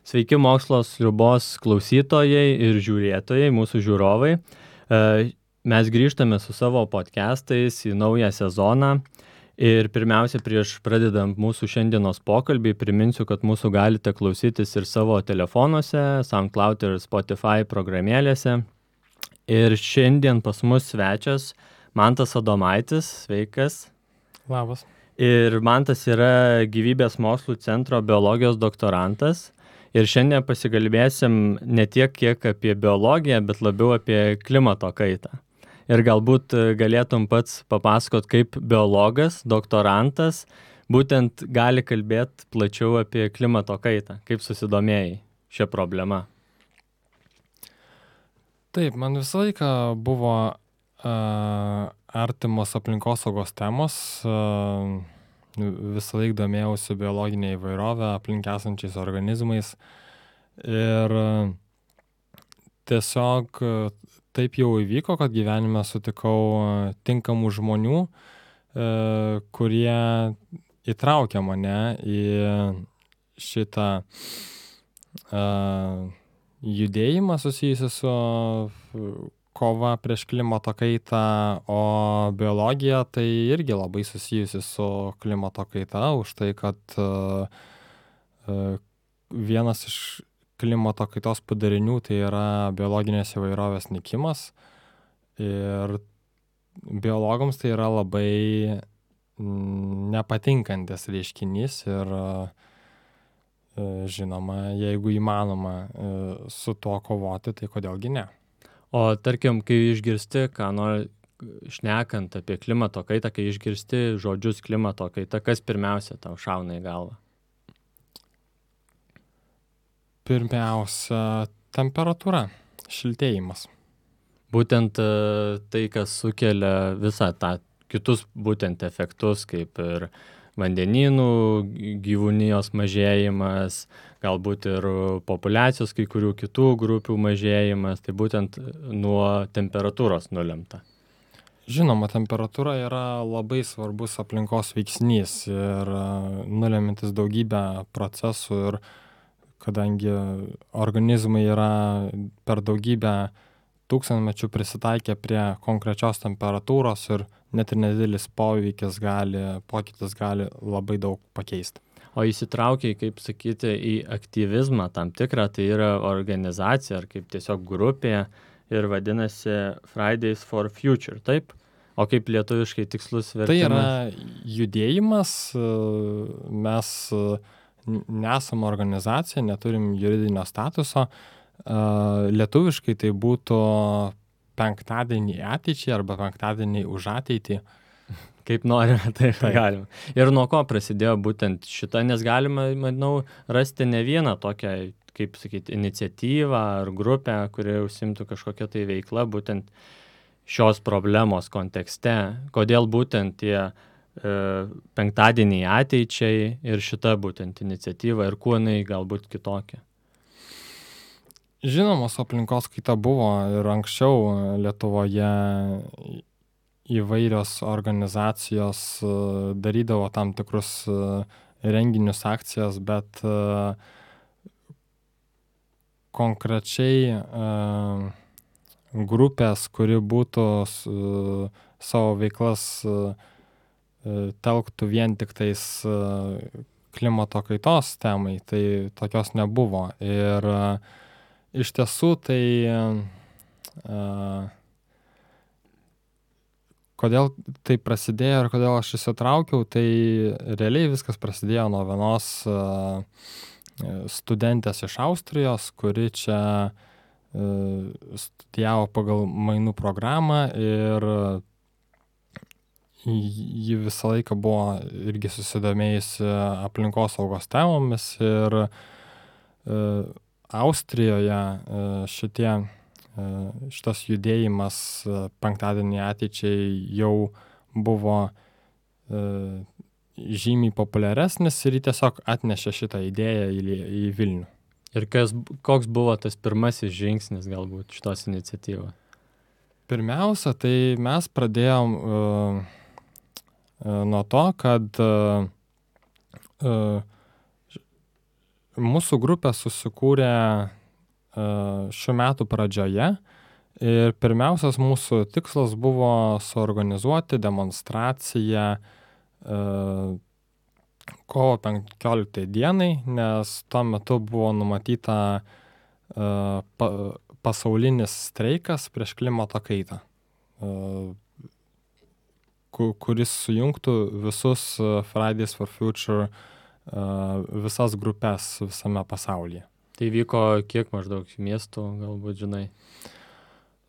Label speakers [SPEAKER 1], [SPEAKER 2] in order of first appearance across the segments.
[SPEAKER 1] Sveiki mokslo sriubos klausytojai ir žiūrėtojai, mūsų žiūrovai. Mes grįžtame su savo podcastais į naują sezoną. Ir pirmiausia, prieš pradedant mūsų šiandienos pokalbį, priminsiu, kad mūsų galite klausytis ir savo telefonuose, SoundCloud ir Spotify programėlėse. Ir šiandien pas mus svečias Mantas Adomaitis. Sveikas.
[SPEAKER 2] Labas.
[SPEAKER 1] Ir Mantas yra Gyvybės mokslų centro biologijos doktorantas. Ir šiandien pasikalbėsim ne tiek kiek apie biologiją, bet labiau apie klimato kaitą. Ir galbūt galėtum pats papasakot, kaip biologas, doktorantas, būtent gali kalbėti plačiau apie klimato kaitą, kaip susidomėjai šią problemą.
[SPEAKER 2] Taip, man visą laiką buvo artimos aplinkosaugos temos. Visą laiką domėjausi biologinė įvairovė, aplink esančiais organizmais. Ir tiesiog taip jau įvyko, kad gyvenime sutikau tinkamų žmonių, kurie įtraukė mane į šitą judėjimą susijusią su kova prieš klimato kaitą, o biologija tai irgi labai susijusi su klimato kaita, už tai, kad vienas iš klimato kaitos padarinių tai yra biologinės įvairovės nykimas. Ir biologams tai yra labai nepatinkantis reiškinys ir žinoma, jeigu įmanoma su tuo kovoti, tai kodėlgi ne.
[SPEAKER 1] O tarkim, kai išgirsti, ką nori šnekant apie klimato kaitą, kai išgirsti žodžius klimato kaita, kas pirmiausia tau šauna į galvą?
[SPEAKER 2] Pirmiausia, temperatūra, šiltėjimas.
[SPEAKER 1] Būtent tai, kas sukelia visą tą kitus būtent efektus, kaip ir vandenynų, gyvūnijos mažėjimas, galbūt ir populiacijos kai kurių kitų grupių mažėjimas, tai būtent nuo temperatūros nulemta.
[SPEAKER 2] Žinoma, temperatūra yra labai svarbus aplinkos veiksnys ir nulemintis daugybę procesų, ir kadangi organizmai yra per daugybę tūkstantmečių prisitaikę prie konkrečios temperatūros ir net ir nedidelis pokytis gali labai daug pakeisti.
[SPEAKER 1] O įsitraukiai, kaip sakyti, į aktyvizmą tam tikrą, tai yra organizacija ar kaip tiesiog grupė ir vadinasi Fridays for Future, taip? O kaip lietuviškai tikslus vertimas?
[SPEAKER 2] Tai yra judėjimas, mes nesam organizacija, neturim juridinio statuso. Lietuviškai tai būtų penktadienį ateičiai arba penktadienį už ateitį.
[SPEAKER 1] Kaip norime, taip galima. Ir nuo ko prasidėjo būtent šita, nes galima, manau, rasti ne vieną tokią, kaip sakyti, iniciatyvą ar grupę, kuri užsimtų kažkokią tai veiklą būtent šios problemos kontekste. Kodėl būtent tie penktadieniai ateičiai ir šita būtent iniciatyva ir kuo jinai galbūt kitokia?
[SPEAKER 2] Žinoma, su aplinkos kaita buvo ir anksčiau Lietuvoje įvairios organizacijos darydavo tam tikrus renginius, akcijas, bet konkrečiai grupės, kuri būtų savo veiklas telktų vien tik tais klimato kaitos temai, tai tokios nebuvo. Ir iš tiesų tai kodėl tai prasidėjo ir kodėl aš įsitraukiau, tai realiai viskas prasidėjo nuo vienos studentės iš Austrijos, kuri čia studijavo pagal mainų programą ir ji visą laiką buvo irgi susidomėjusi aplinkosaugos temomis ir Austrijoje šitas judėjimas penktadienį ateičiai jau buvo žymiai populiaresnis ir jį tiesiog atnešė šitą idėją į Vilnių.
[SPEAKER 1] Ir koks buvo tas pirmasis žingsnis galbūt šitos iniciatyvos?
[SPEAKER 2] Pirmiausia, tai mes pradėjom nuo to, kad mūsų grupė susikūrė šių metų pradžioje ir pirmiausias mūsų tikslas buvo suorganizuoti demonstraciją kovo 15 dienai, nes tuo metu buvo numatyta pasaulinis streikas prieš klimato kaitą, kuris sujungtų visus Fridays for Future visas grupės visame pasaulyje.
[SPEAKER 1] Tai vyko kiek maždaug miestų, galbūt žinai?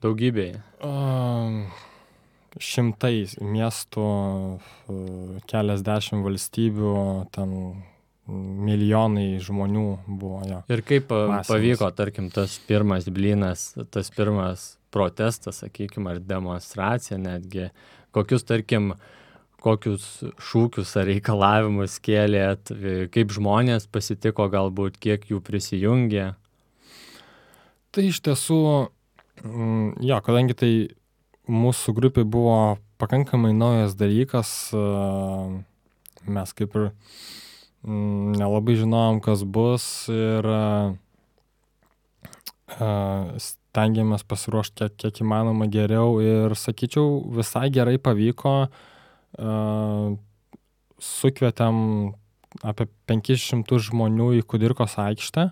[SPEAKER 1] Daugybėje.
[SPEAKER 2] Šimtais miestų, keliasdešimt valstybių, ten milijonai žmonių buvo. Jo.
[SPEAKER 1] Ir kaip pavyko, tarkim, tas pirmas blynas, tas pirmas protestas, sakykime, ar demonstracija netgi, kokius šūkius ar reikalavimus kėlėt, kaip žmonės pasitiko galbūt, kiek jų prisijungė?
[SPEAKER 2] Tai iš tiesų, jo, kadangi tai mūsų grupė buvo pakankamai naujas dalykas, mes kaip ir nelabai žinojom, kas bus ir stengiamės pasiruošti kiek įmanoma geriau ir, sakyčiau, visai gerai pavyko. Sukvietėm apie 500 žmonių į Kudirkos aikštę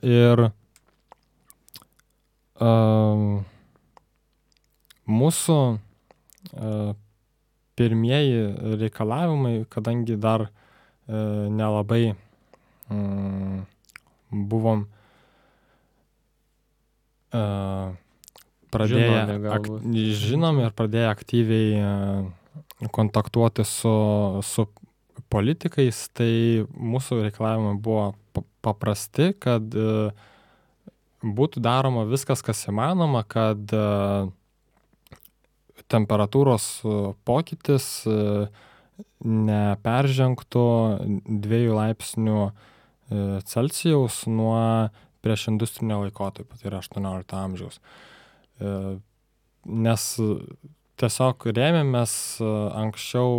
[SPEAKER 2] ir mūsų pirmieji reikalavimai, kadangi dar nelabai buvom žinomi ir pradėję aktyviai kontaktuoti su politikais, tai mūsų reikalavimai buvo paprasti, kad būtų daroma viskas, kas įmanoma, kad temperatūros pokytis neperžengtų 2 laipsnių Celsijaus nuo prieš industrinio laikotarpio, tai yra 18 amžiaus. Nes tiesiog rėmėmės anksčiau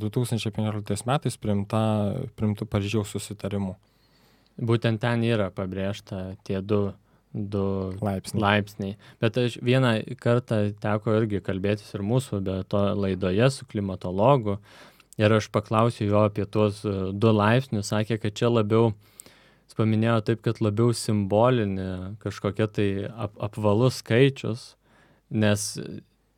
[SPEAKER 2] 2015 metais priimtų Paryžiaus susitarimų.
[SPEAKER 1] Būtent ten yra pabrėžta tie du laipsniai. Bet aš vieną kartą teko irgi kalbėtis ir mūsų laidoje su klimatologu ir aš paklausiau jo apie tuos 2 laipsnius, sakė, kad čia labiau, jis paminėjo taip, kad labiau simbolinė kažkokia tai apvalus skaičius, nes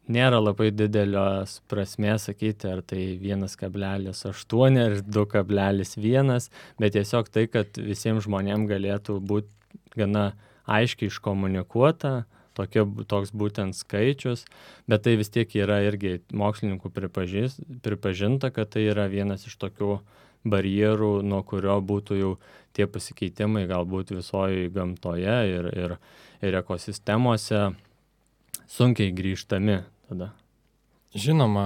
[SPEAKER 1] nėra labai didelios prasmės sakyti, ar tai 1,8 ar 2,1, bet tiesiog tai, kad visiems žmonėms galėtų būti gana aiškiai iškomunikuota, toks būtent skaičius, bet tai vis tiek yra irgi mokslininkų pripažinta, kad tai yra vienas iš tokių barjerų, nuo kurio būtų jau tie pasikeitimai galbūt visoje gamtoje ir ekosistemose sunkiai grįžtami tada.
[SPEAKER 2] Žinoma,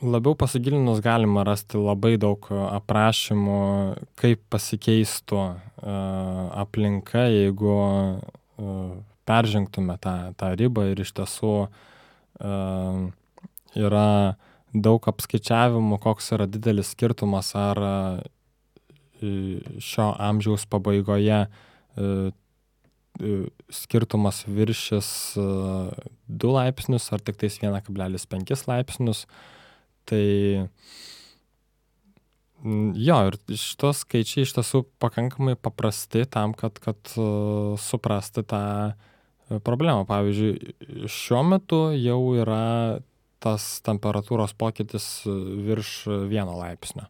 [SPEAKER 2] labiau pasigilinus galima rasti labai daug aprašymų, kaip pasikeistų aplinka, jeigu peržengtume tą ribą ir iš tiesų yra daug apskaičiavimų, koks yra didelis skirtumas, ar šio amžiaus pabaigoje skirtumas viršis 2 laipsnius ar tik tais 1,5 laipsnius. Tai jo, ir šitos skaičiai iš tiesų pakankamai paprasti tam, kad suprasti tą problemą. Pavyzdžiui, šiuo metu jau yra tas temperatūros pokytis virš 1 laipsnio.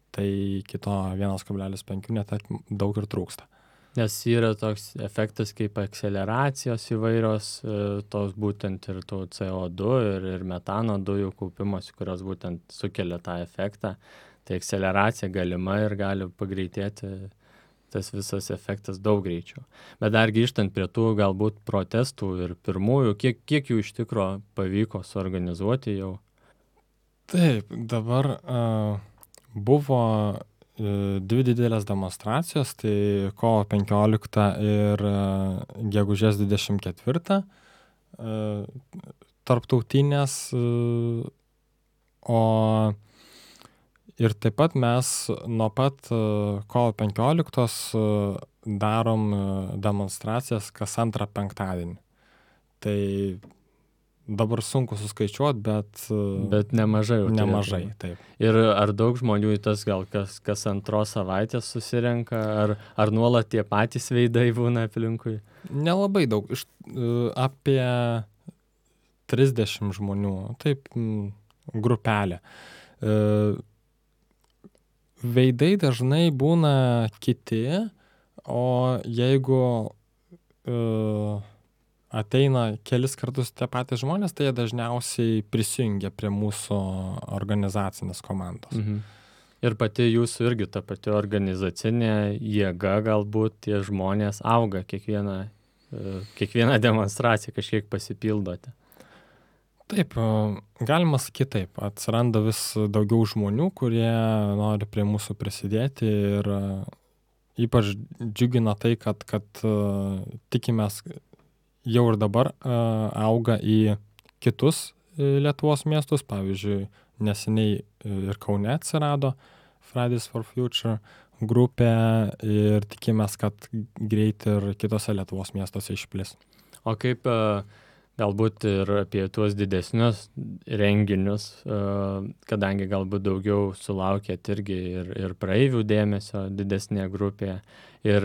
[SPEAKER 2] Tai kito 1,5 net daug ir trūksta.
[SPEAKER 1] Nes yra toks efektas kaip akceleracijos įvairios, tos būtent ir tų CO2 ir metano dujų kaupimas, kurios būtent sukelia tą efektą. Tai akceleracija galima ir gali pagreitėti tas visas efektas daug greičiau. Bet dar grįžtant prie tų galbūt protestų ir pirmųjų, kiek jų iš tikro pavyko suorganizuoti jau?
[SPEAKER 2] Taip, dabar buvo 2 didelės demonstracijos, tai kovo 15 ir gegužės 24 tarptautinės O ir taip pat mes nuo pat kovo 15 darom demonstracijas kas antrą penktadienį. Tai dabar sunku suskaičiuot, bet
[SPEAKER 1] nemažai jau
[SPEAKER 2] nemažai,
[SPEAKER 1] turėtų.
[SPEAKER 2] taip.
[SPEAKER 1] Ir ar daug žmonių į tas gal kas antros savaitės susirenka, ar nuolat tie patys veidai būna aplinkui?
[SPEAKER 2] Nelabai daug, apie 30 žmonių, taip, grupelė. Veidai dažnai būna kiti, o jeigu ateina kelis kartus tie patys žmonės, tai jie dažniausiai prisijungia prie mūsų organizacinės komandos.
[SPEAKER 1] Mhm. Ir pati jūsų irgi ta pati organizacinė jėga, galbūt tie žmonės auga kiekvieną demonstraciją, kažkiek pasipildote.
[SPEAKER 2] Taip, galima sakyti taip. Atsiranda vis daugiau žmonių, kurie nori prie mūsų prisidėti ir ypač džiugina tai, kad tikimės jau ir dabar auga į kitus Lietuvos miestus. Pavyzdžiui, neseniai ir Kaune atsirado Fridays for Future grupė ir tikimės, kad greit ir kitose Lietuvos miestuose išplis.
[SPEAKER 1] O kaip galbūt ir apie tuos didesnius renginius, kadangi galbūt daugiau sulaukėt irgi ir praeivių dėmesio didesnėje grupėje. Ir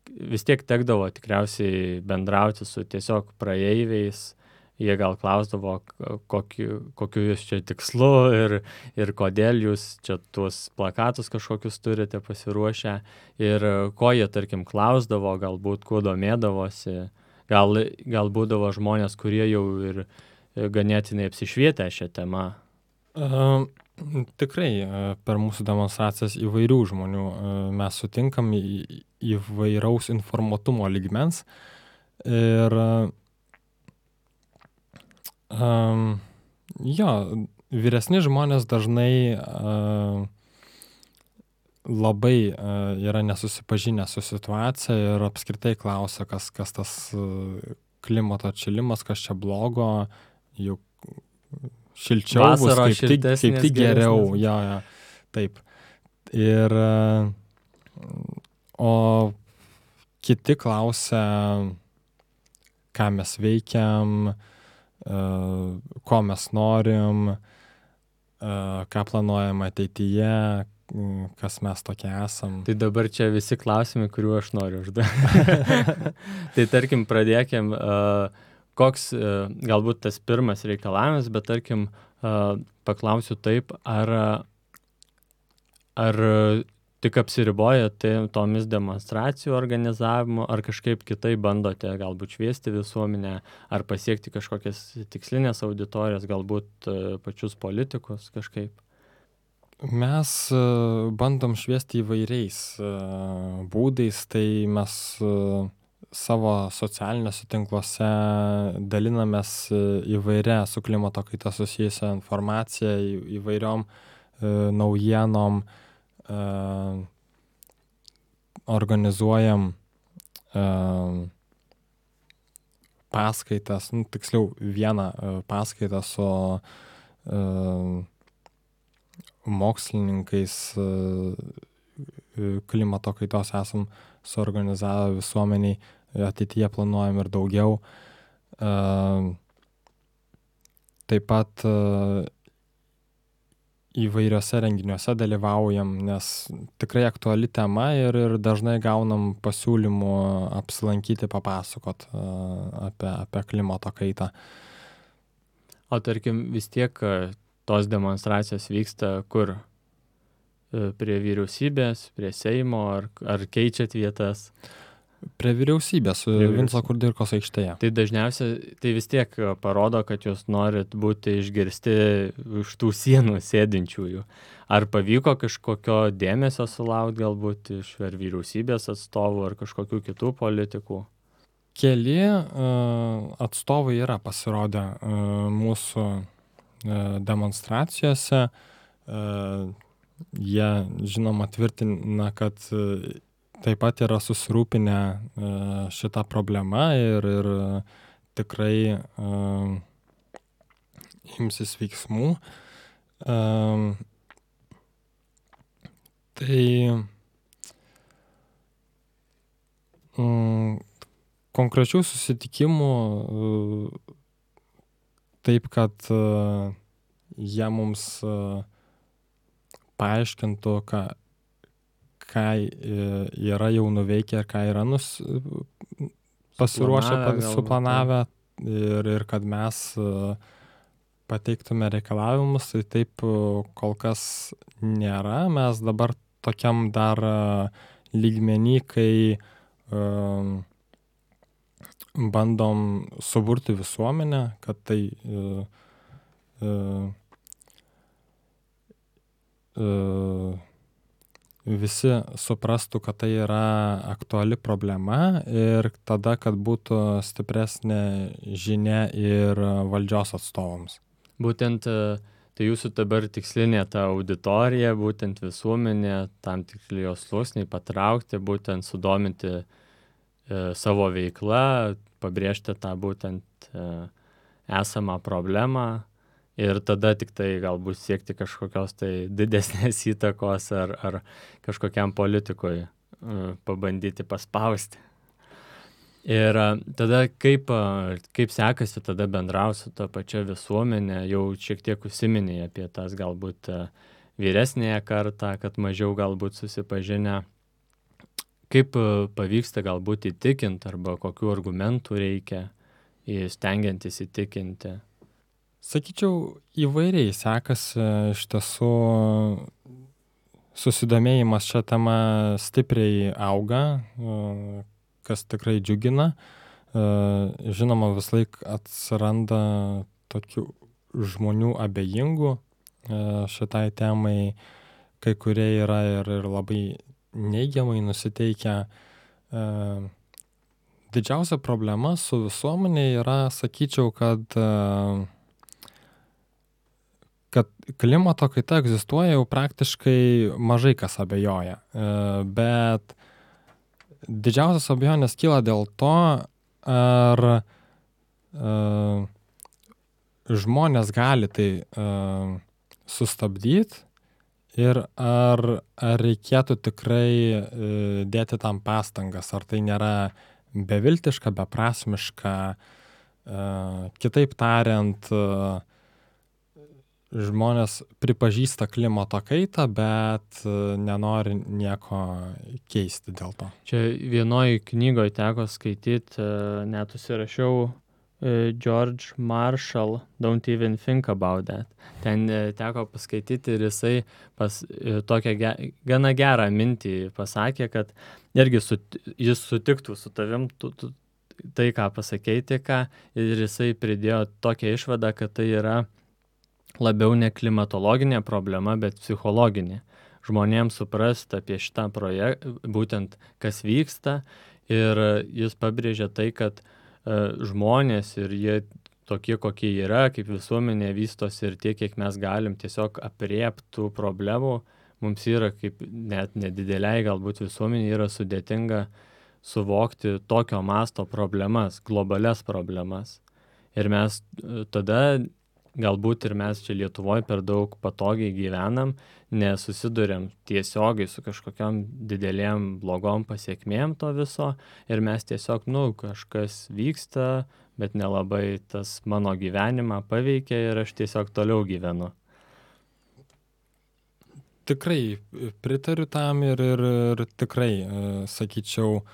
[SPEAKER 1] vis tiek tekdavo tikriausiai bendrauti su tiesiog praeiviais. Jie gal klausdavo, kokiu jūs čia tikslu ir kodėl jūs čia tuos plakatus kažkokius turite pasiruošę. Ir ko jie, tarkim, klausdavo, galbūt kuo domėdavosi. Gal būdavo žmonės, kurie jau ir ganėtinai apsišvietę šią temą?
[SPEAKER 2] Tikrai per mūsų demonstracijas įvairių žmonių mes sutinkam įvairaus informuotumo lygmens. Ir vyresni žmonės dažnai labai yra nesusipažinę su situacija ir apskritai klausia, kas tas klimato atšilimas, kas čia blogo, juk šilčiau bus, kaip tik geriau. Jo, taip. Ir o kiti klausia, ką mes veikiam, ko mes norim, ką planuojam ateityje, kas mes tokie esam.
[SPEAKER 1] Tai dabar čia visi klausimai, kuriuo aš noriu užduoti. Tai tarkim, pradėkim, koks galbūt tas pirmas reikalavimas, bet tarkim, paklausiu taip, ar tik apsiriboja tomis demonstracijų organizavimu, ar kažkaip kitai bandote galbūt šviesti visuomenę, ar pasiekti kažkokias tikslinės auditorijas, galbūt pačius politikus kažkaip?
[SPEAKER 2] Mes bandom šviesti įvairiais būdais, tai mes savo socialiniuose tinkluose dalinamės įvairia su klimato kaita susijusią informaciją, įvairiom naujienom, organizuojam paskaitas, tiksliau vieną paskaitą su mokslininkais klimato kaitos esam suorganizavę visuomeniai, ateityje planuojam ir daugiau. Taip pat įvairiose renginiuose dalyvaujam, nes tikrai aktuali tema ir dažnai gaunam pasiūlymų apsilankyti, papasakot apie klimato kaitą.
[SPEAKER 1] O tarkim, vis tiek tos demonstracijos vyksta kur? Prie vyriausybės, prie Seimo, ar keičiat vietas?
[SPEAKER 2] Prie vyriausybės, Vinco Kudirkos aikštėje.
[SPEAKER 1] Tai dažniausiai, tai vis tiek parodo, kad jūs norit būti išgirsti už tų sienų sėdinčiųjų. Ar pavyko kažkokio dėmesio sulaukti galbūt iš ar vyriausybės atstovų, ar kažkokių kitų politikų?
[SPEAKER 2] Keli atstovai yra pasirodę mūsų demonstracijose. Jie, žinoma, tvirtina, kad taip pat yra susirūpinę šitą problemą ir tikrai imsis veiksmų. Tai konkrečių susitikimų taip, kad jie mums paaiškintų, ką yra jau nuveikę ir ką yra pasiruošę, suplanavę ir kad mes pateiktume reikalavimus, tai taip kol kas nėra. Mes dabar tokiam dar lygmenį, kai bandom suburti visuomenę, kad tai visi suprastų, kad tai yra aktuali problema ir tada, kad būtų stipresnė žinia ir valdžios atstovams.
[SPEAKER 1] Būtent tai jūsų dabar tikslinė ta auditorija, būtent visuomenė, tam tikri jos sluoksniai patraukti, būtent sudominti savo veiklą, pabrėžti tą būtent esamą problemą ir tada tik tai galbūt siekti kažkokios tai didesnės įtakos ar kažkokiam politikui pabandyti paspausti. Ir tada kaip sekasi tada bendrauti su ta pačia visuomenė, jau šiek tiek užsiminėjai apie tas galbūt vyresnėje kartą, kad mažiau galbūt susipažinę. Kaip pavyksta galbūt įtikinti arba kokių argumentų reikia stengiantis įtikinti?
[SPEAKER 2] Sakyčiau, įvairiai sekasi. Iš tiesų susidomėjimas šią temą stipriai auga, kas tikrai džiugina. Žinoma, vis laik atsiranda tokių žmonių abejingų šitai temai, kai kurie yra ir labai neigiamai nusiteikę. Didžiausia problema su visuomenė yra, sakyčiau, kad klimato kaita egzistuoja, jau praktiškai mažai kas abejoja. Bet didžiausias abejonės kyla dėl to, ar žmonės gali tai sustabdyti ir ar reikėtų tikrai dėti tam pastangas, ar tai nėra beviltiška, beprasmiška. Kitaip tariant, žmonės pripažįsta klimato kaitą, bet nenori nieko keisti dėl to.
[SPEAKER 1] Čia vienoj knygoje teko skaityti, net užsirašiau George Marshall, Don't Even Think About That. Ten teko paskaityti ir jisai tokią gana gerą mintį pasakė, kad irgi jis sutiktų su tavim tai, ką pasakei tik ką, ir jisai pridėjo tokią išvadą, kad tai yra labiau ne klimatologinė problema, bet psichologinė. Žmonėms suprasti apie šitą projektą, būtent kas vyksta, ir jis pabrėžia tai, kad žmonės ir jie tokie, kokie yra, kaip visuomenė vystosi ir tiek, kiek mes galim tiesiog aprieptų problemų, mums yra kaip net nedideliai galbūt visuomenė yra sudėtinga suvokti tokio masto problemas, globalias problemas. Ir mes tada galbūt ir mes čia Lietuvoje per daug patogiai gyvenam, nesusiduriam tiesiogiai su kažkokiam didelėm blogom pasiekmėm to viso ir mes tiesiog, kažkas vyksta, bet nelabai tas mano gyvenimą paveikia ir aš tiesiog toliau gyvenu.
[SPEAKER 2] Tikrai pritariu tam ir tikrai, sakyčiau,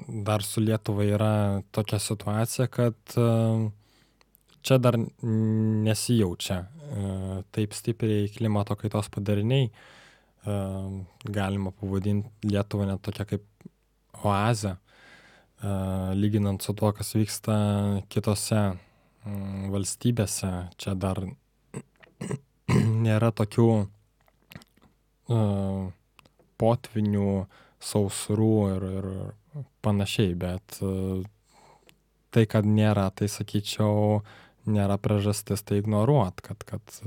[SPEAKER 2] dar su Lietuva yra tokia situacija, kad čia dar nesijaučia taip stipriai klimato kaitos padariniai. Galima pavadinti Lietuvą net tokia kaip oazę, lyginant su tuo, kas vyksta kitose valstybėse. Čia dar nėra tokių potvinių, sausrų ir panašiai, bet tai, kad nėra, tai sakyčiau, nėra priežastis tai ignoruot, kad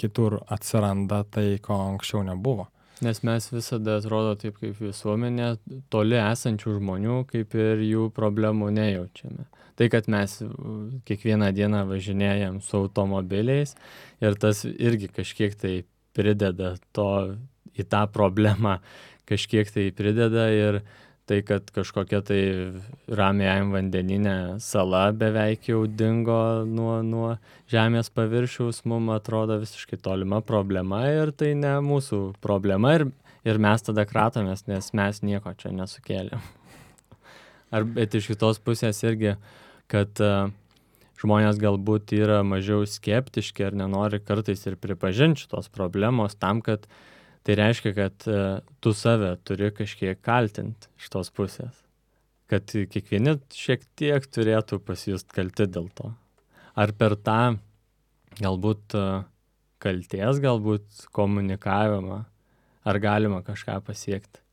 [SPEAKER 2] kitur atsiranda tai, ko anksčiau nebuvo.
[SPEAKER 1] Nes mes visada atrodo taip kaip visuomenė, toli esančių žmonių, kaip ir jų problemų nejaučiame. Tai, kad mes kiekvieną dieną važinėjam su automobiliais ir tas irgi kažkiek tai prideda į tą problemą, kažkiek tai prideda ir tai, kad kažkokia tai Ramiajam vandenyne sala beveik jau dingo nuo žemės paviršiaus, mums atrodo visiškai tolima problema ir tai ne mūsų problema ir mes tada kratomės, nes mes nieko čia nesukėlėm. Bet iš kitos pusės irgi, kad žmonės galbūt yra mažiau skeptiški ar nenori kartais ir pripažinti šitos problemos tam, kad tai reiškia, kad tu save turi kažkiek kaltinti iš tos pusės. Kad kiekvieni šiek tiek turėtų pasijust kalti dėl to. Ar per tą galbūt kalties, galbūt komunikavimą, ar galima kažką pasiekti.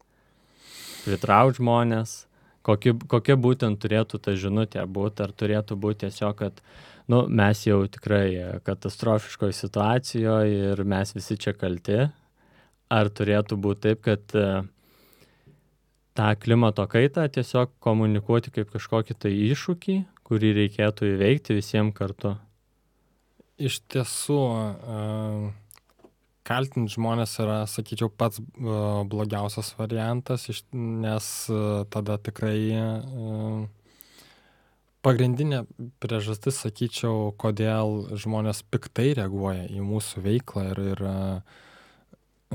[SPEAKER 1] Pritraukti žmonės, kokia būtent turėtų ta žinutė būti, ar turėtų būti tiesiog, kad mes jau tikrai katastrofiškoje situacijoje ir mes visi čia kalti. Ar turėtų būti taip, kad tą klimato kaitą tiesiog komunikuoti kaip kažkokį tai iššūkį, kurį reikėtų įveikti visiems kartu?
[SPEAKER 2] Iš tiesų, kaltinti žmonės yra, sakyčiau, pats blogiausias variantas, nes tada tikrai pagrindinė priežastis, sakyčiau, kodėl žmonės piktai reaguoja į mūsų veiklą ir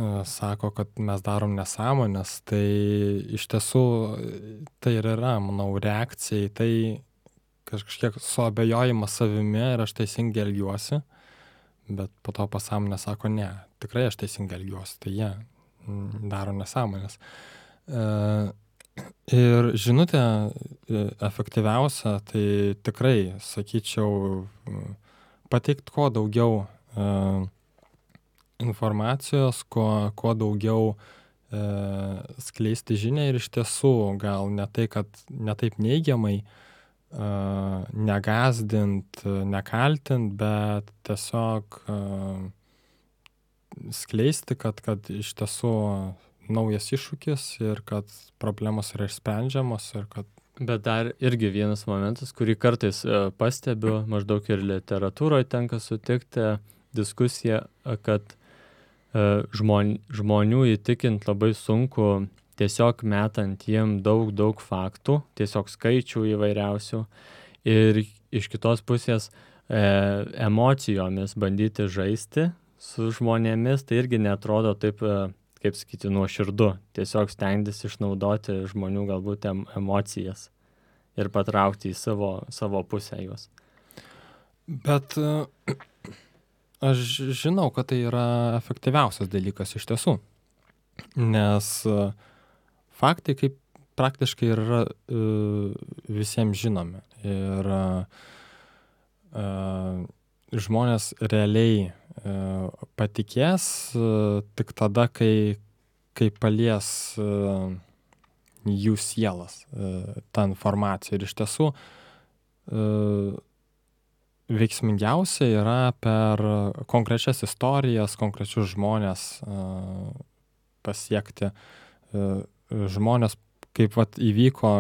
[SPEAKER 2] sako, kad mes darom nesąmonės, tai iš tiesų tai ir yra, manau, reakcija į tai kažkiek suabejojimas savimi ir aš teisingai elgiuosi, bet po to pasąmonė sako, ne, tikrai aš teisingai elgiuosi, tai jie daro nesąmonės. Ir žinutė efektyviausia, tai tikrai, sakyčiau, pateikti kuo daugiau informacijos, kuo daugiau skleisti žinią ir iš tiesų gal ne tai, kad ne taip neigiamai negazdint, nekaltint, bet tiesiog skleisti, kad iš tiesų naujas iššūkis ir kad problemos yra išsprendžiamos ir kad...
[SPEAKER 1] Bet dar irgi vienas momentas, kurį kartais pastebiu, maždaug ir literatūroje tenka sutikti diskusiją, kad žmonių įtikint labai sunku tiesiog metant jiem daug faktų, tiesiog skaičių įvairiausių ir iš kitos pusės emocijomis bandyti žaisti su žmonėmis, tai irgi netrodo taip, kaip sakyti, nuoširdu. Tiesiog stengtis išnaudoti žmonių galbūt emocijas ir patraukti į savo pusę juos.
[SPEAKER 2] Bet aš žinau, kad tai yra efektyviausias dalykas iš tiesų, nes faktai kaip praktiškai yra visiems žinomi ir žmonės realiai patikės tik tada, kai palies jų sielas tą informaciją ir iš tiesų veiksmingiausia yra per konkrečias istorijas, konkrečius žmonės pasiekti. Žmonės, kaip įvyko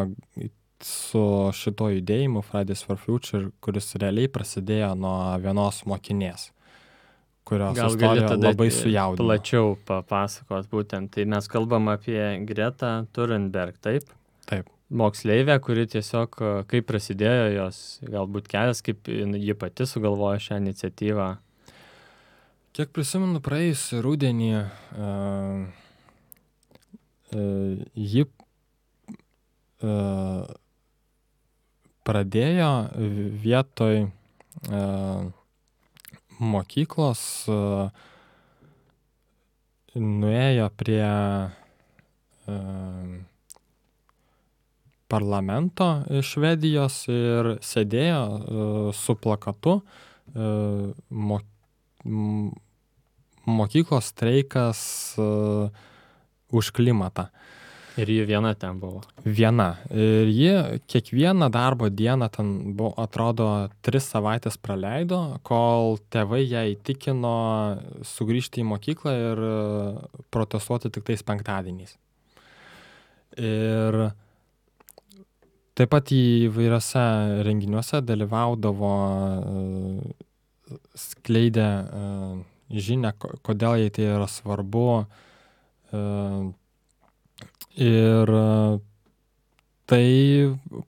[SPEAKER 2] su šito judėjimu Fridays for Future, kuris realiai prasidėjo nuo vienos mokinės, kurios istorija labai sujaudino.
[SPEAKER 1] Plačiau papasakot būtent. Tai mes kalbam apie Gretą Thunberg, taip?
[SPEAKER 2] Taip.
[SPEAKER 1] Moksleivė, kuri tiesiog, kaip prasidėjo jos galbūt kelias, kaip ji pati sugalvojo šią iniciatyvą.
[SPEAKER 2] Kiek prisimenu, praėjusį rudenį ji pradėjo vietoj mokyklos, nuėjo prie parlamento Švedijos ir sėdėjo su plakatu mokyklos streikas už klimatą.
[SPEAKER 1] Ir ji viena ten buvo.
[SPEAKER 2] Viena. Ir ji kiekvieną darbo dieną ten buvo, atrodo, 3 savaitės praleido, kol tėvai ją įtikino sugrįžti į mokyklą ir protestuoti tik tais penktadieniais. Ir taip pat įvairiose renginiuose dalyvaudavo, skleidė žinią, kodėl jai tai yra svarbu. Ir tai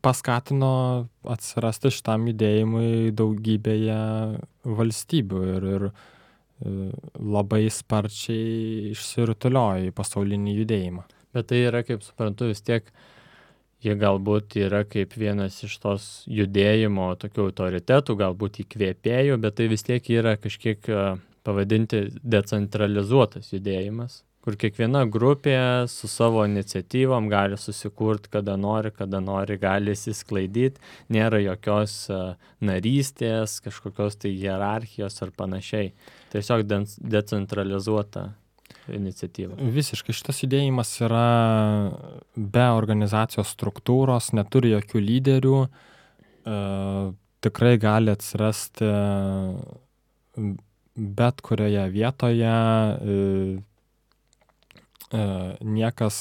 [SPEAKER 2] paskatino atsirasti šitam judėjimui daugybėje valstybių ir labai sparčiai išsirutuliojo į pasaulinį judėjimą.
[SPEAKER 1] Bet tai yra, kaip suprantu, vis tiek jie galbūt yra kaip vienas iš tos judėjimo tokių autoritetų, galbūt įkvėpėjų, bet tai vis tiek yra kažkiek pavadinti decentralizuotas judėjimas, kur kiekviena grupė su savo iniciatyvom gali susikurti, kada nori, gali įsisklaidyti, nėra jokios narystės, kažkokios tai hierarchijos ar panašiai. Tiesiog decentralizuota iniciatyva.
[SPEAKER 2] Visiškai šitas judėjimas yra be organizacijos struktūros, neturi jokių lyderių, tikrai gali atsirasti bet kurioje vietoje, niekas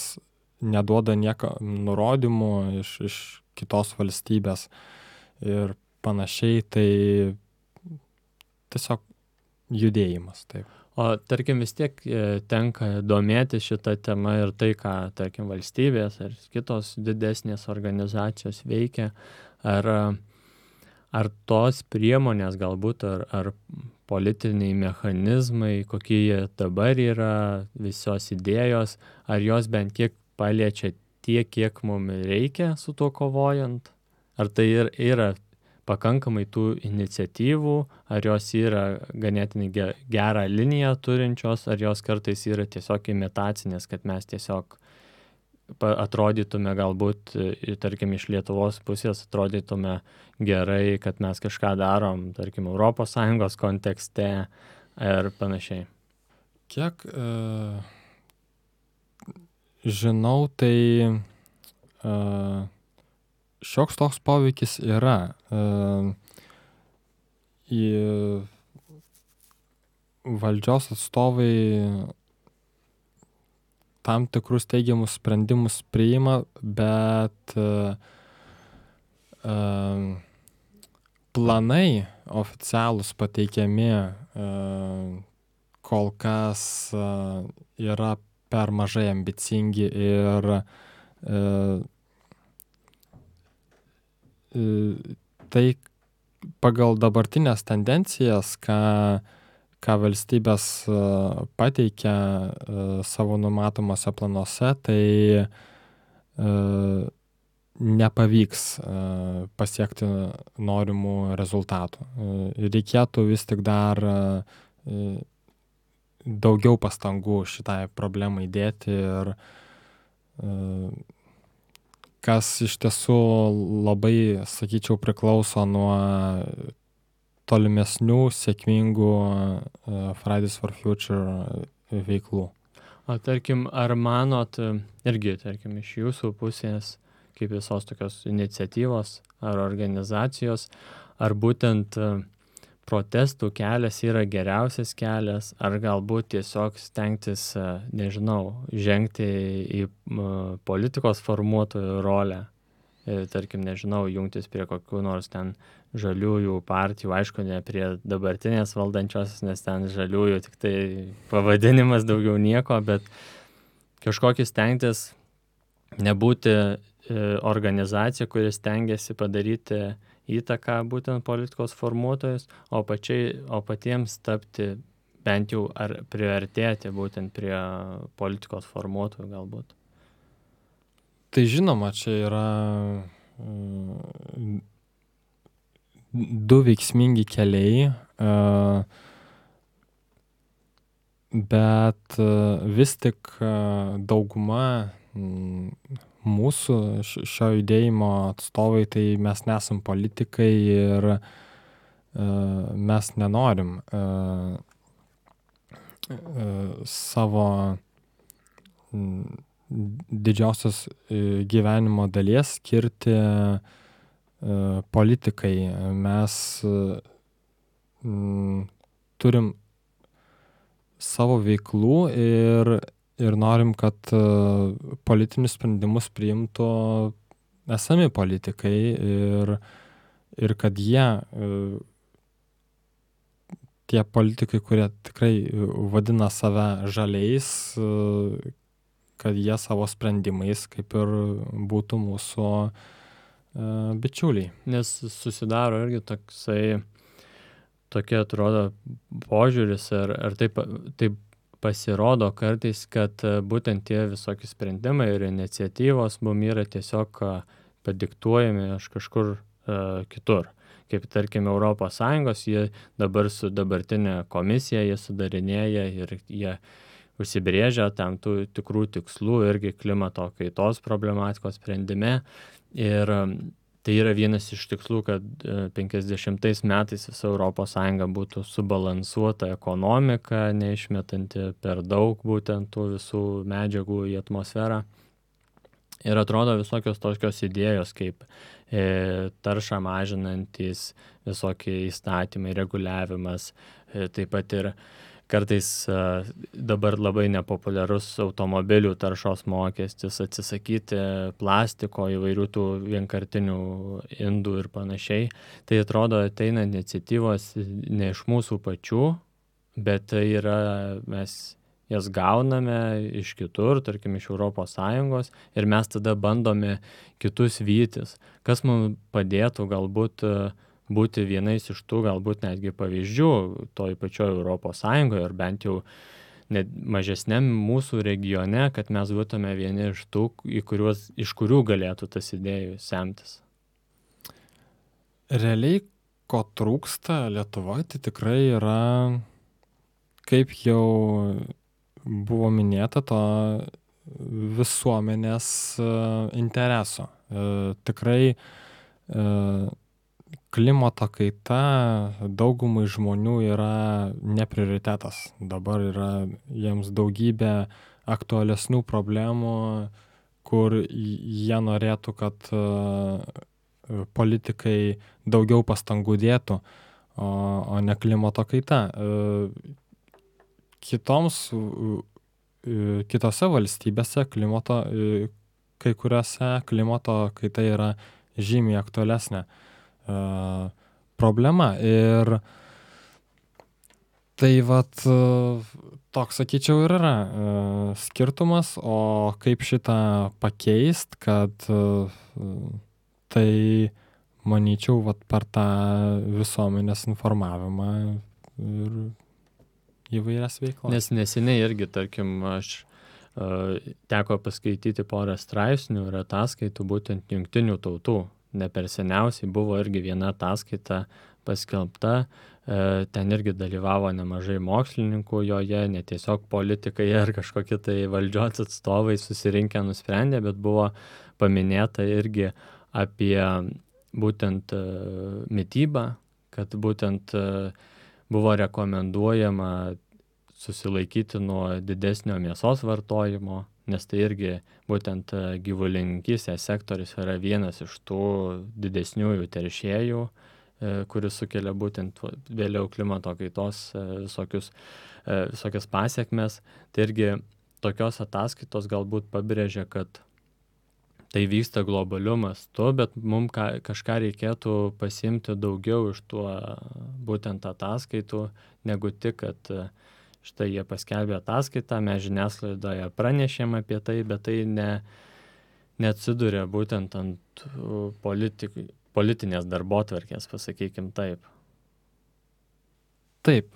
[SPEAKER 2] neduoda nurodymų iš kitos valstybės ir panašiai, tai tiesiog judėjimas, taip.
[SPEAKER 1] O tarkim vis tiek tenka domėti šitą temą ir tai, ką, tarkim, valstybės ar kitos didesnės organizacijos veikia, ar tos priemonės galbūt, ar politiniai mechanizmai, kokie jie dabar yra, visos idėjos, ar jos bent kiek paliečia tiek, kiek mums reikia su tuo kovojant? Ar tai yra pakankamai tų iniciatyvų, ar jos yra ganėtinai gerą liniją turinčios, ar jos kartais yra tiesiog imitacinės, kad mes tiesiog atrodytume galbūt, tarkim, iš Lietuvos pusės atrodytume gerai, kad mes kažką darom, tarkim, ES kontekste ir panašiai.
[SPEAKER 2] Kiek žinau, tai šioks toks poveikis yra. Valdžios atstovai tam tikrus teigiamus sprendimus priima, bet planai oficialūs pateikiami kol kas yra per mažai ambicingi ir tai pagal dabartinės tendencijas, ką valstybės pateikia savo numatomuose planuose, tai nepavyks pasiekti norimų rezultatų. Reikėtų vis tik dar daugiau pastangų šitai problemai dėti ir kas iš tiesų labai, sakyčiau, priklauso nuo tolimesnių sėkmingų Fridays for Future veiklų.
[SPEAKER 1] O tarkim, ar manot, irgi, tarkim, iš jūsų pusės, kaip visos tokios iniciatyvos ar organizacijos, ar būtent protestų kelias yra geriausias kelias, ar galbūt tiesiog stengtis, nežinau, žengti į politikos formuotojų rolę, tarkim, nežinau, jungtis prie kokių nors ten žaliųjų partijų, aišku, ne prie dabartinės valdančiosios, nes ten žaliųjų tik tai pavadinimas, daugiau nieko, bet kažkokį stengtis nebūti organizacija, kuris stengiasi padaryti įtaką būtent politikos formuotojus, o patiems tapti bent jau ar priartėti būtent prie politikos formuotojų galbūt.
[SPEAKER 2] Tai žinoma, čia yra du veiksmingi keliai, bet vis tik dauguma mūsų šio judėjimo atstovai, tai mes nesam politikai ir mes nenorim savo didžiausios gyvenimo dalies skirti politikai. Mes turim savo veiklų ir norim, kad politinius sprendimus priimtų esami politikai ir kad jie, tie politikai, kurie tikrai vadina save žaliais, kad jie savo sprendimais kaip ir būtų mūsų bičiuliai.
[SPEAKER 1] Nes susidaro irgi tokia atrodo požiūris, ar taip pasirodo kartais, kad būtent tie visokie sprendimai ir iniciatyvos mum yra tiesiog padiktuojami iš kažkur kitur. Kaip tarkim ES, jie dabar su dabartinė komisija, jie sudarinėja ir jie užsibrėžia tam tų tikrų tikslų irgi klimato kaitos problematikos sprendime. Ir tai yra vienas iš tikslų, kad 50 metais visa ES būtų subalansuota ekonomika, neišmetanti per daug būtent tų visų medžiagų į atmosferą. Ir atrodo visokios tokios idėjos, kaip taršą mažinantys visokie įstatymai, reguliavimas, taip pat ir kartais dabar labai nepopuliarus automobilių taršos mokestis, atsisakyti plastiko, įvairių tų vienkartinių indų ir panašiai. Tai atrodo ateina iniciatyvos ne iš mūsų pačių, bet tai yra, mes jas gauname iš kitur, tarkim iš ES, ir mes tada bandome kitus vytis, kas mums padėtų galbūt būti vienais iš tų galbūt netgi pavyzdžių toj pačioj ES, ar bent jau net mažesniam mūsų regione, kad mes būtume vieni iš tų, iš kurių galėtų tas idėjų semtis.
[SPEAKER 2] Realiai, ko trūksta Lietuvoje, tai tikrai yra, kaip jau buvo minėta, to visuomenės intereso. Tikrai klimato kaita daugumai žmonių yra ne prioritetas. Dabar yra jiems daugybė aktualesnių problemų, kur jie norėtų, kad politikai daugiau pastangų dėtų, o ne klimato kaita. Kitose valstybėse kai kuriuose klimato kaita yra žymiai aktualesnė problema. Ir tai toks, sakyčiau, ir yra skirtumas, o kaip šitą pakeist, kad tai, manyčiau, per tą visuomenės informavimą ir įvairias veiklas.
[SPEAKER 1] Nes neseniai irgi, tarkim, aš teko paskaityti porą straipsnių ir ataskaitų būtent jungtinių tautų. Ne per seniausiai buvo irgi viena ataskaita paskelbta, ten irgi dalyvavo nemažai mokslininkų joje, ne tiesiog politikai ar kažkokie tai valdžios atstovai susirinkę nusprendė, bet buvo paminėta irgi apie būtent mitybą, kad būtent buvo rekomenduojama susilaikyti nuo didesnio mėsos vartojimo, nes tai irgi būtent gyvulininkystės sektorius yra vienas iš tų didesniųjų teršėjų, kuris sukelia būtent vėliau klimato kaitos visokias pasiekmes. Tai irgi tokios ataskaitos galbūt pabrėžia, kad tai vyksta globaliu mastu, bet mums kažką reikėtų pasiimti daugiau iš tuo būtent ataskaitų, negu tik, kad štai jie paskelbė ataskaitą, mes žiniasklaidoje pranešėm apie tai, bet tai neatsiduria būtent ant politinės darbotvarkės, pasakykim taip.
[SPEAKER 2] Taip,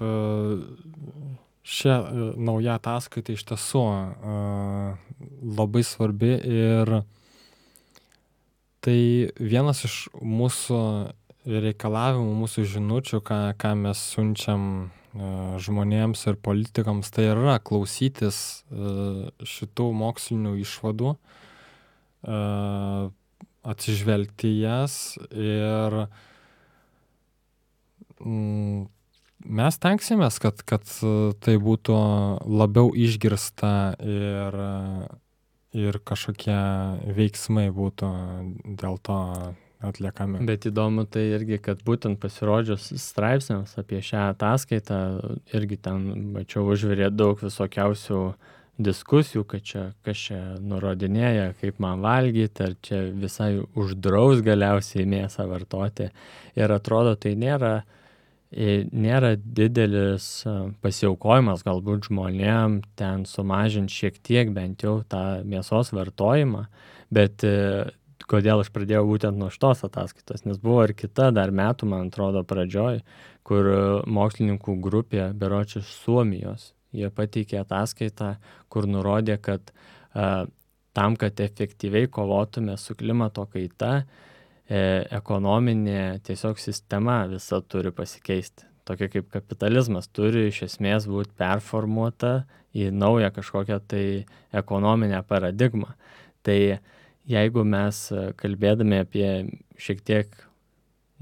[SPEAKER 2] šia nauja ataskaita iš tiesų labai svarbi ir tai vienas iš mūsų reikalavimų, mūsų žinučių, ką mes siunčiam žmonėms ir politikams, tai yra klausytis šitų mokslinių išvadų, atsižvelgti jas ir mes tenksimės, kad tai būtų labiau išgirsta ir kažkokie veiksmai būtų dėl to atliekami.
[SPEAKER 1] Bet įdomu tai irgi, kad būtent pasirodžius straipsniams apie šią ataskaitą, irgi ten, mačiau, užvirė daug visokiausių diskusijų, kad čia, kas čia nurodinėja, kaip man valgyti, ar čia visai uždraus galiausiai mėsą vartoti. Ir atrodo, tai nėra didelis pasiaukojimas galbūt žmonėm ten sumažinti šiek tiek bent jau tą mėsos vartojimą, bet kodėl aš pradėjau būtent nuo šitos ataskaitos, nes buvo ir kita dar metų, man atrodo, pradžioj, kur mokslininkų grupė, berods iš Suomijos, jie pateikė ataskaitą, kur nurodė, kad tam, kad efektyviai kovotume su klimato kaita, ekonominė tiesiog sistema visa turi pasikeisti. Tokia kaip kapitalizmas turi iš esmės būti performuota į naują kažkokią tai ekonominę paradigmą. Tai jeigu mes kalbėdami apie šiek tiek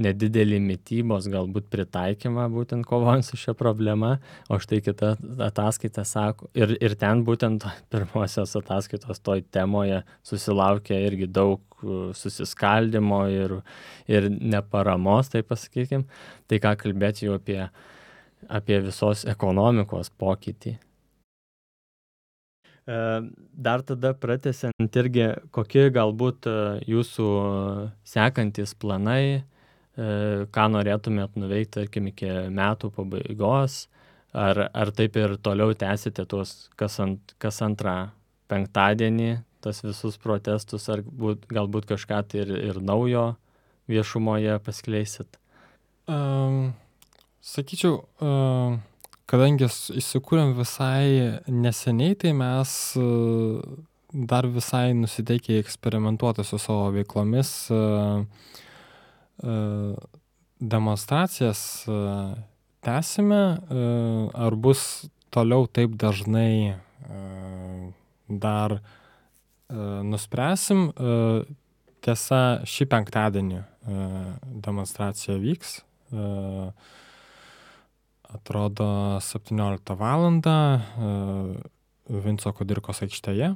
[SPEAKER 1] nedidelį mitybos galbūt pritaikymą būtent kovojant su šia problema, o štai kita ataskaita sako, ir ten būtent pirmosios ataskaitos toj temoje susilaukė irgi daug susiskaldimo ir neparamos, tai pasakykim, tai ką kalbėti jau apie visos ekonomikos pokytį. Dar tada pratęsiant irgi, kokie galbūt jūsų sekantis planai, ką norėtumėt nuveikti, tarkim, iki metų pabaigos, ar taip ir toliau tęsite tuos kas antrą penktadienį, tas visus protestus, ar galbūt kažką tai ir naujo viešumoje paskleisit?
[SPEAKER 2] Sakyčiau, kadangi įsikūrėm visai neseniai, tai mes dar visai nusiteikę eksperimentuoti su savo veiklomis, demonstracijas tęsime, ar bus toliau taip dažnai dar nuspręsim. Tiesa, šį penktadienį demonstracija vyks, atrodo 17 valandą Vinco Kudirkos aikštėje.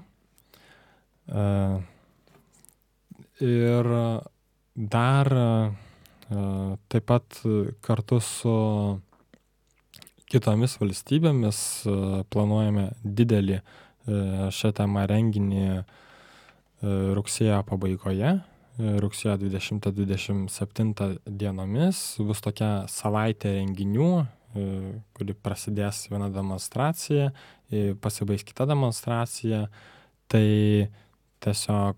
[SPEAKER 2] Ir dar taip pat kartu su kitomis valstybėmis planuojame didelį šią temą renginį rugsėjo pabaigoje, rugsėjo 20-27 dienomis. Bus tokia savaitė renginių, kuri prasidės viena demonstracija, pasibaigs kita demonstracija. Tai tiesiog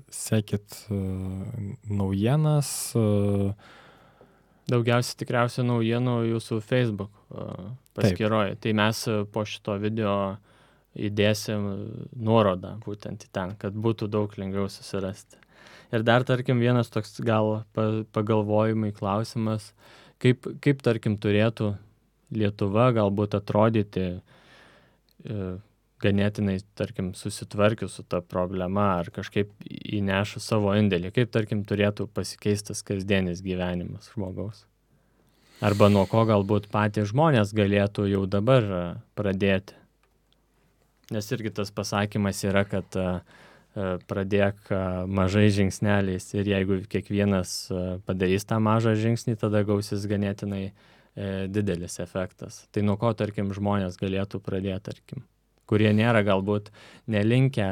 [SPEAKER 2] sekit naujienas.
[SPEAKER 1] Daugiausiai tikriausiai naujienų jūsų Facebook paskyroje. Tai mes po šito video įdėsim nuorodą būtent į ten, kad būtų daug lengviau susirasti. Ir dar, tarkim, vienas toks gal pagalvojimai klausimas, kaip tarkim, turėtų Lietuva galbūt atrodyti ganėtinai, tarkim, susitvarkius su ta problema ar kažkaip įnešus savo indėlį, kaip, tarkim, turėtų pasikeistas kasdienis gyvenimas žmogaus. Arba nuo ko galbūt patys žmonės galėtų jau dabar pradėti. Nes irgi tas pasakymas yra, kad pradėk mažai žingsneliais ir jeigu kiekvienas padarys tą mažą žingsnį, tada gausis ganėtinai didelis efektas. Tai nuo ko, tarkim, žmonės galėtų pradėti, tarkim, kurie nėra galbūt nelinkę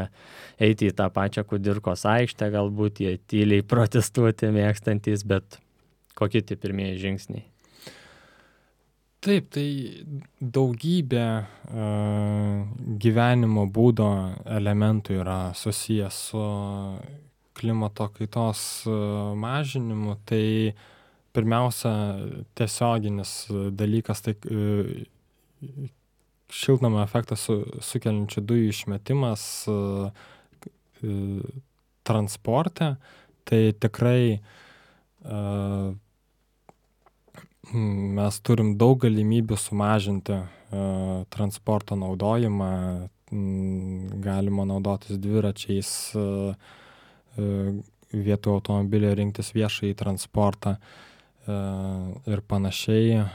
[SPEAKER 1] eiti į tą pačią Kudirkos aikštę, galbūt jie tyliai protestuoti mėgstantys, bet kokie tie pirmieji žingsniai?
[SPEAKER 2] Taip, tai daugybė gyvenimo būdo elementų yra susijęs su klimato kaitos mažinimu. Tai pirmiausia, tiesioginis dalykas, tai šiltnamio efektą sukeliančių dujų išmetimas transporte. Tai tikrai mes turim daug galimybių sumažinti transporto naudojimą. Galima naudotis dviračiais, vietoj automobilio rinktis viešąjį transportą ir panašiai.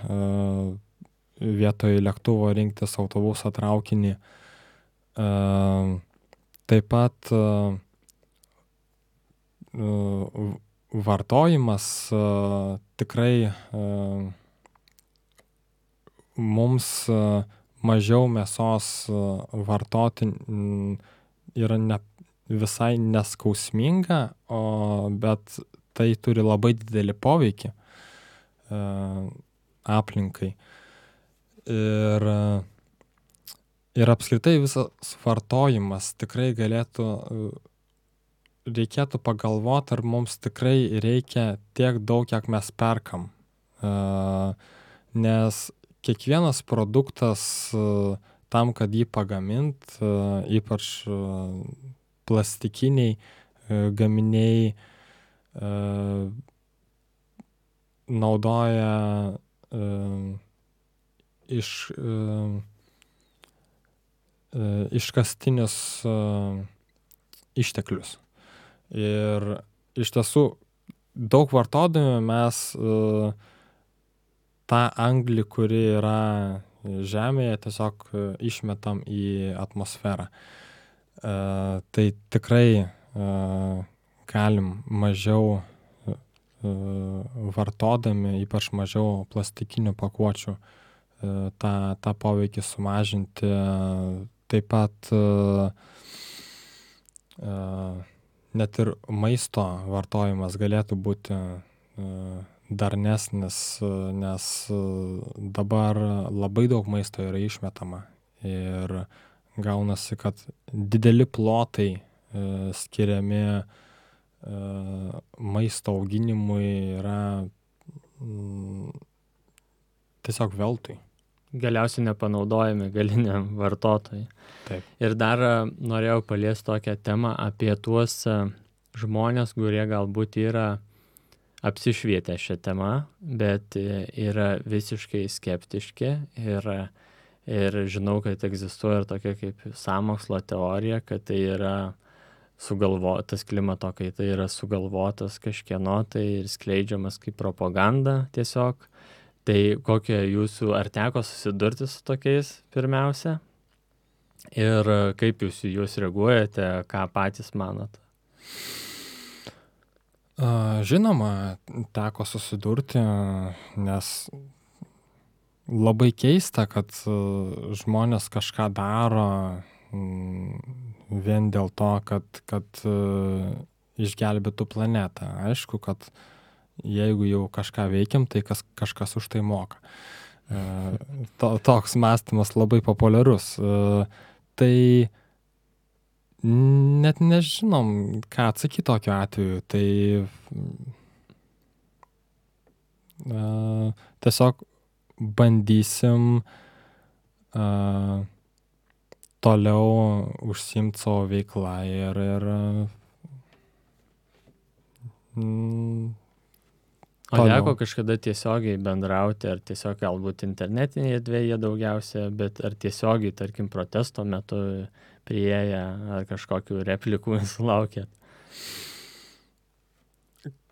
[SPEAKER 2] Vietoj lėktuvo rinktis autobusą, traukinį. Taip pat vartojimas tikrai mums mažiau mėsos vartoti yra visai neskausminga, bet tai turi labai didelį poveikį aplinkai. Ir apskritai visas vartojimas tikrai reikėtų pagalvoti, ar mums tikrai reikia tiek daug, kiek mes perkam. Nes kiekvienas produktas tam, kad jį pagamint, ypač plastikiniai gaminiai, naudoja iškastinius išteklius. Ir iš tiesų daug vartodami mes tą anglį, kuri yra Žemėje, tiesiog išmetam į atmosferą. Tai tikrai galim mažiau vartodami, ypač mažiau plastikinių pakuočių, tą poveikį sumažinti. Taip pat net ir maisto vartojimas galėtų būti darnesnis, nes dabar labai daug maisto yra išmetama ir gaunasi, kad dideli plotai skiriami maisto auginimui yra tiesiog veltui.
[SPEAKER 1] Galiausiai nepanaudojami galiniam vartotojui.
[SPEAKER 2] Taip.
[SPEAKER 1] Ir dar norėjau paliesti tokią temą apie tuos žmonės, kurie galbūt yra apsišvietę šią temą, bet yra visiškai skeptiški ir žinau, kad egzistuoja ir tokia kaip sąmokslo teorija, kad tai yra sugalvotas klimato kaita yra sugalvotas kažkieno tai ir skleidžiamas kaip propaganda tiesiog. Tai kokie jūsų, ar teko susidurti su tokiais pirmiausia? Ir kaip jūs reaguojate, ką patys manot?
[SPEAKER 2] Žinoma, teko susidurti, nes labai keista, kad žmonės kažką daro vien dėl to, kad išgelbėtų planetą. Aišku, kad jeigu jau kažką veikiam, tai kažkas už tai moka. Toks mąstymas labai populiarus. Tai net nežinom, ką atsakyti tokiu atveju. Tai tiesiog bandysim toliau užsiimti savo veiklą ir
[SPEAKER 1] O teko kažkada tiesiogiai bendrauti, ar tiesiog galbūt internetinėje erdvėje daugiausia, bet ar tiesiogiai, tarkim, protesto metu priėję, ar kažkokių replikų sulaukėt?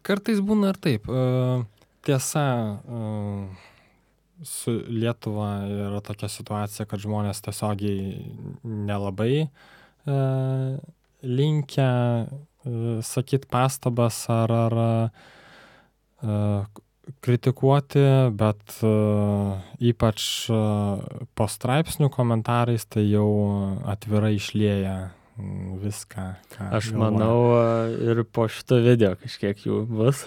[SPEAKER 2] Kartais būna ir taip. Tiesa, su Lietuva yra tokia situacija, kad žmonės tiesiogiai nelabai linkę sakyti pastabas ar kritikuoti, bet ypač po straipsnių komentarais tai jau atvirai išlieja viską, ką
[SPEAKER 1] Aš manau, ir po šito video kažkiek jų bus.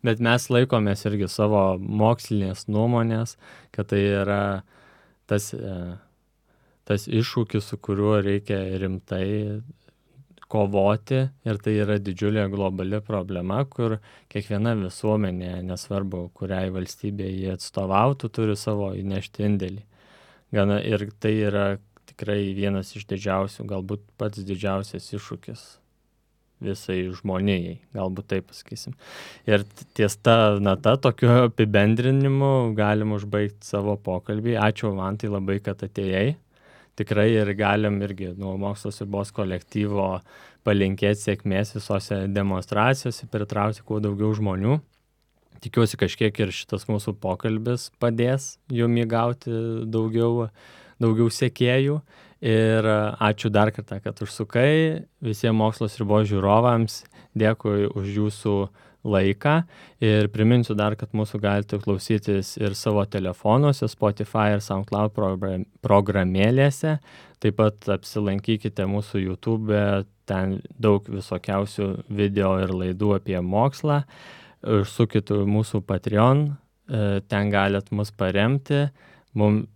[SPEAKER 1] Bet mes laikomės irgi savo mokslinės nuomonės, kad tai yra tas iššūkis, su kuriuo reikia rimtai kovoti, ir tai yra didžiulė globali problema, kur kiekviena visuomenė, nesvarbu, kuriai valstybėje jie atstovautų, turi savo įnešti indėlį. Ir tai yra tikrai vienas iš didžiausių, galbūt pats didžiausias iššūkis visai žmonijai, galbūt taip pasakysim. Ir ties ta nata, tokiu apibendrinimu galim užbaigti savo pokalbį. Ačiū, Mantai, labai, kad atėjai. Tikrai ir galim irgi nuo Mokslo svarbos kolektyvo palinkėti sėkmės visose demonstracijose, pritraukti kuo daugiau žmonių. Tikiuosi, kažkiek ir šitas mūsų pokalbis padės jum įgauti daugiau sekėjų. Ir ačiū dar kartą, kad užsukai. Visiems Mokslo Sriubos žiūrovams dėkui už jūsų laiką. Ir priminsiu dar, kad mūsų galite klausytis ir savo telefonuose, Spotify ir SoundCloud programėlėse. Taip pat apsilankykite mūsų YouTube, ten daug visokiausių video ir laidų apie mokslą. Užsukit mūsų Patreon, ten galit mus paremti. Mums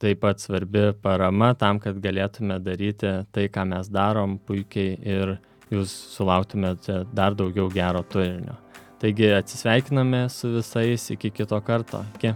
[SPEAKER 1] taip pat svarbi parama tam, kad galėtume daryti tai, ką mes darom puikiai ir jūs sulauktumėte dar daugiau gero turinio. Taigi atsisveikiname su visais iki kito karto. Iki.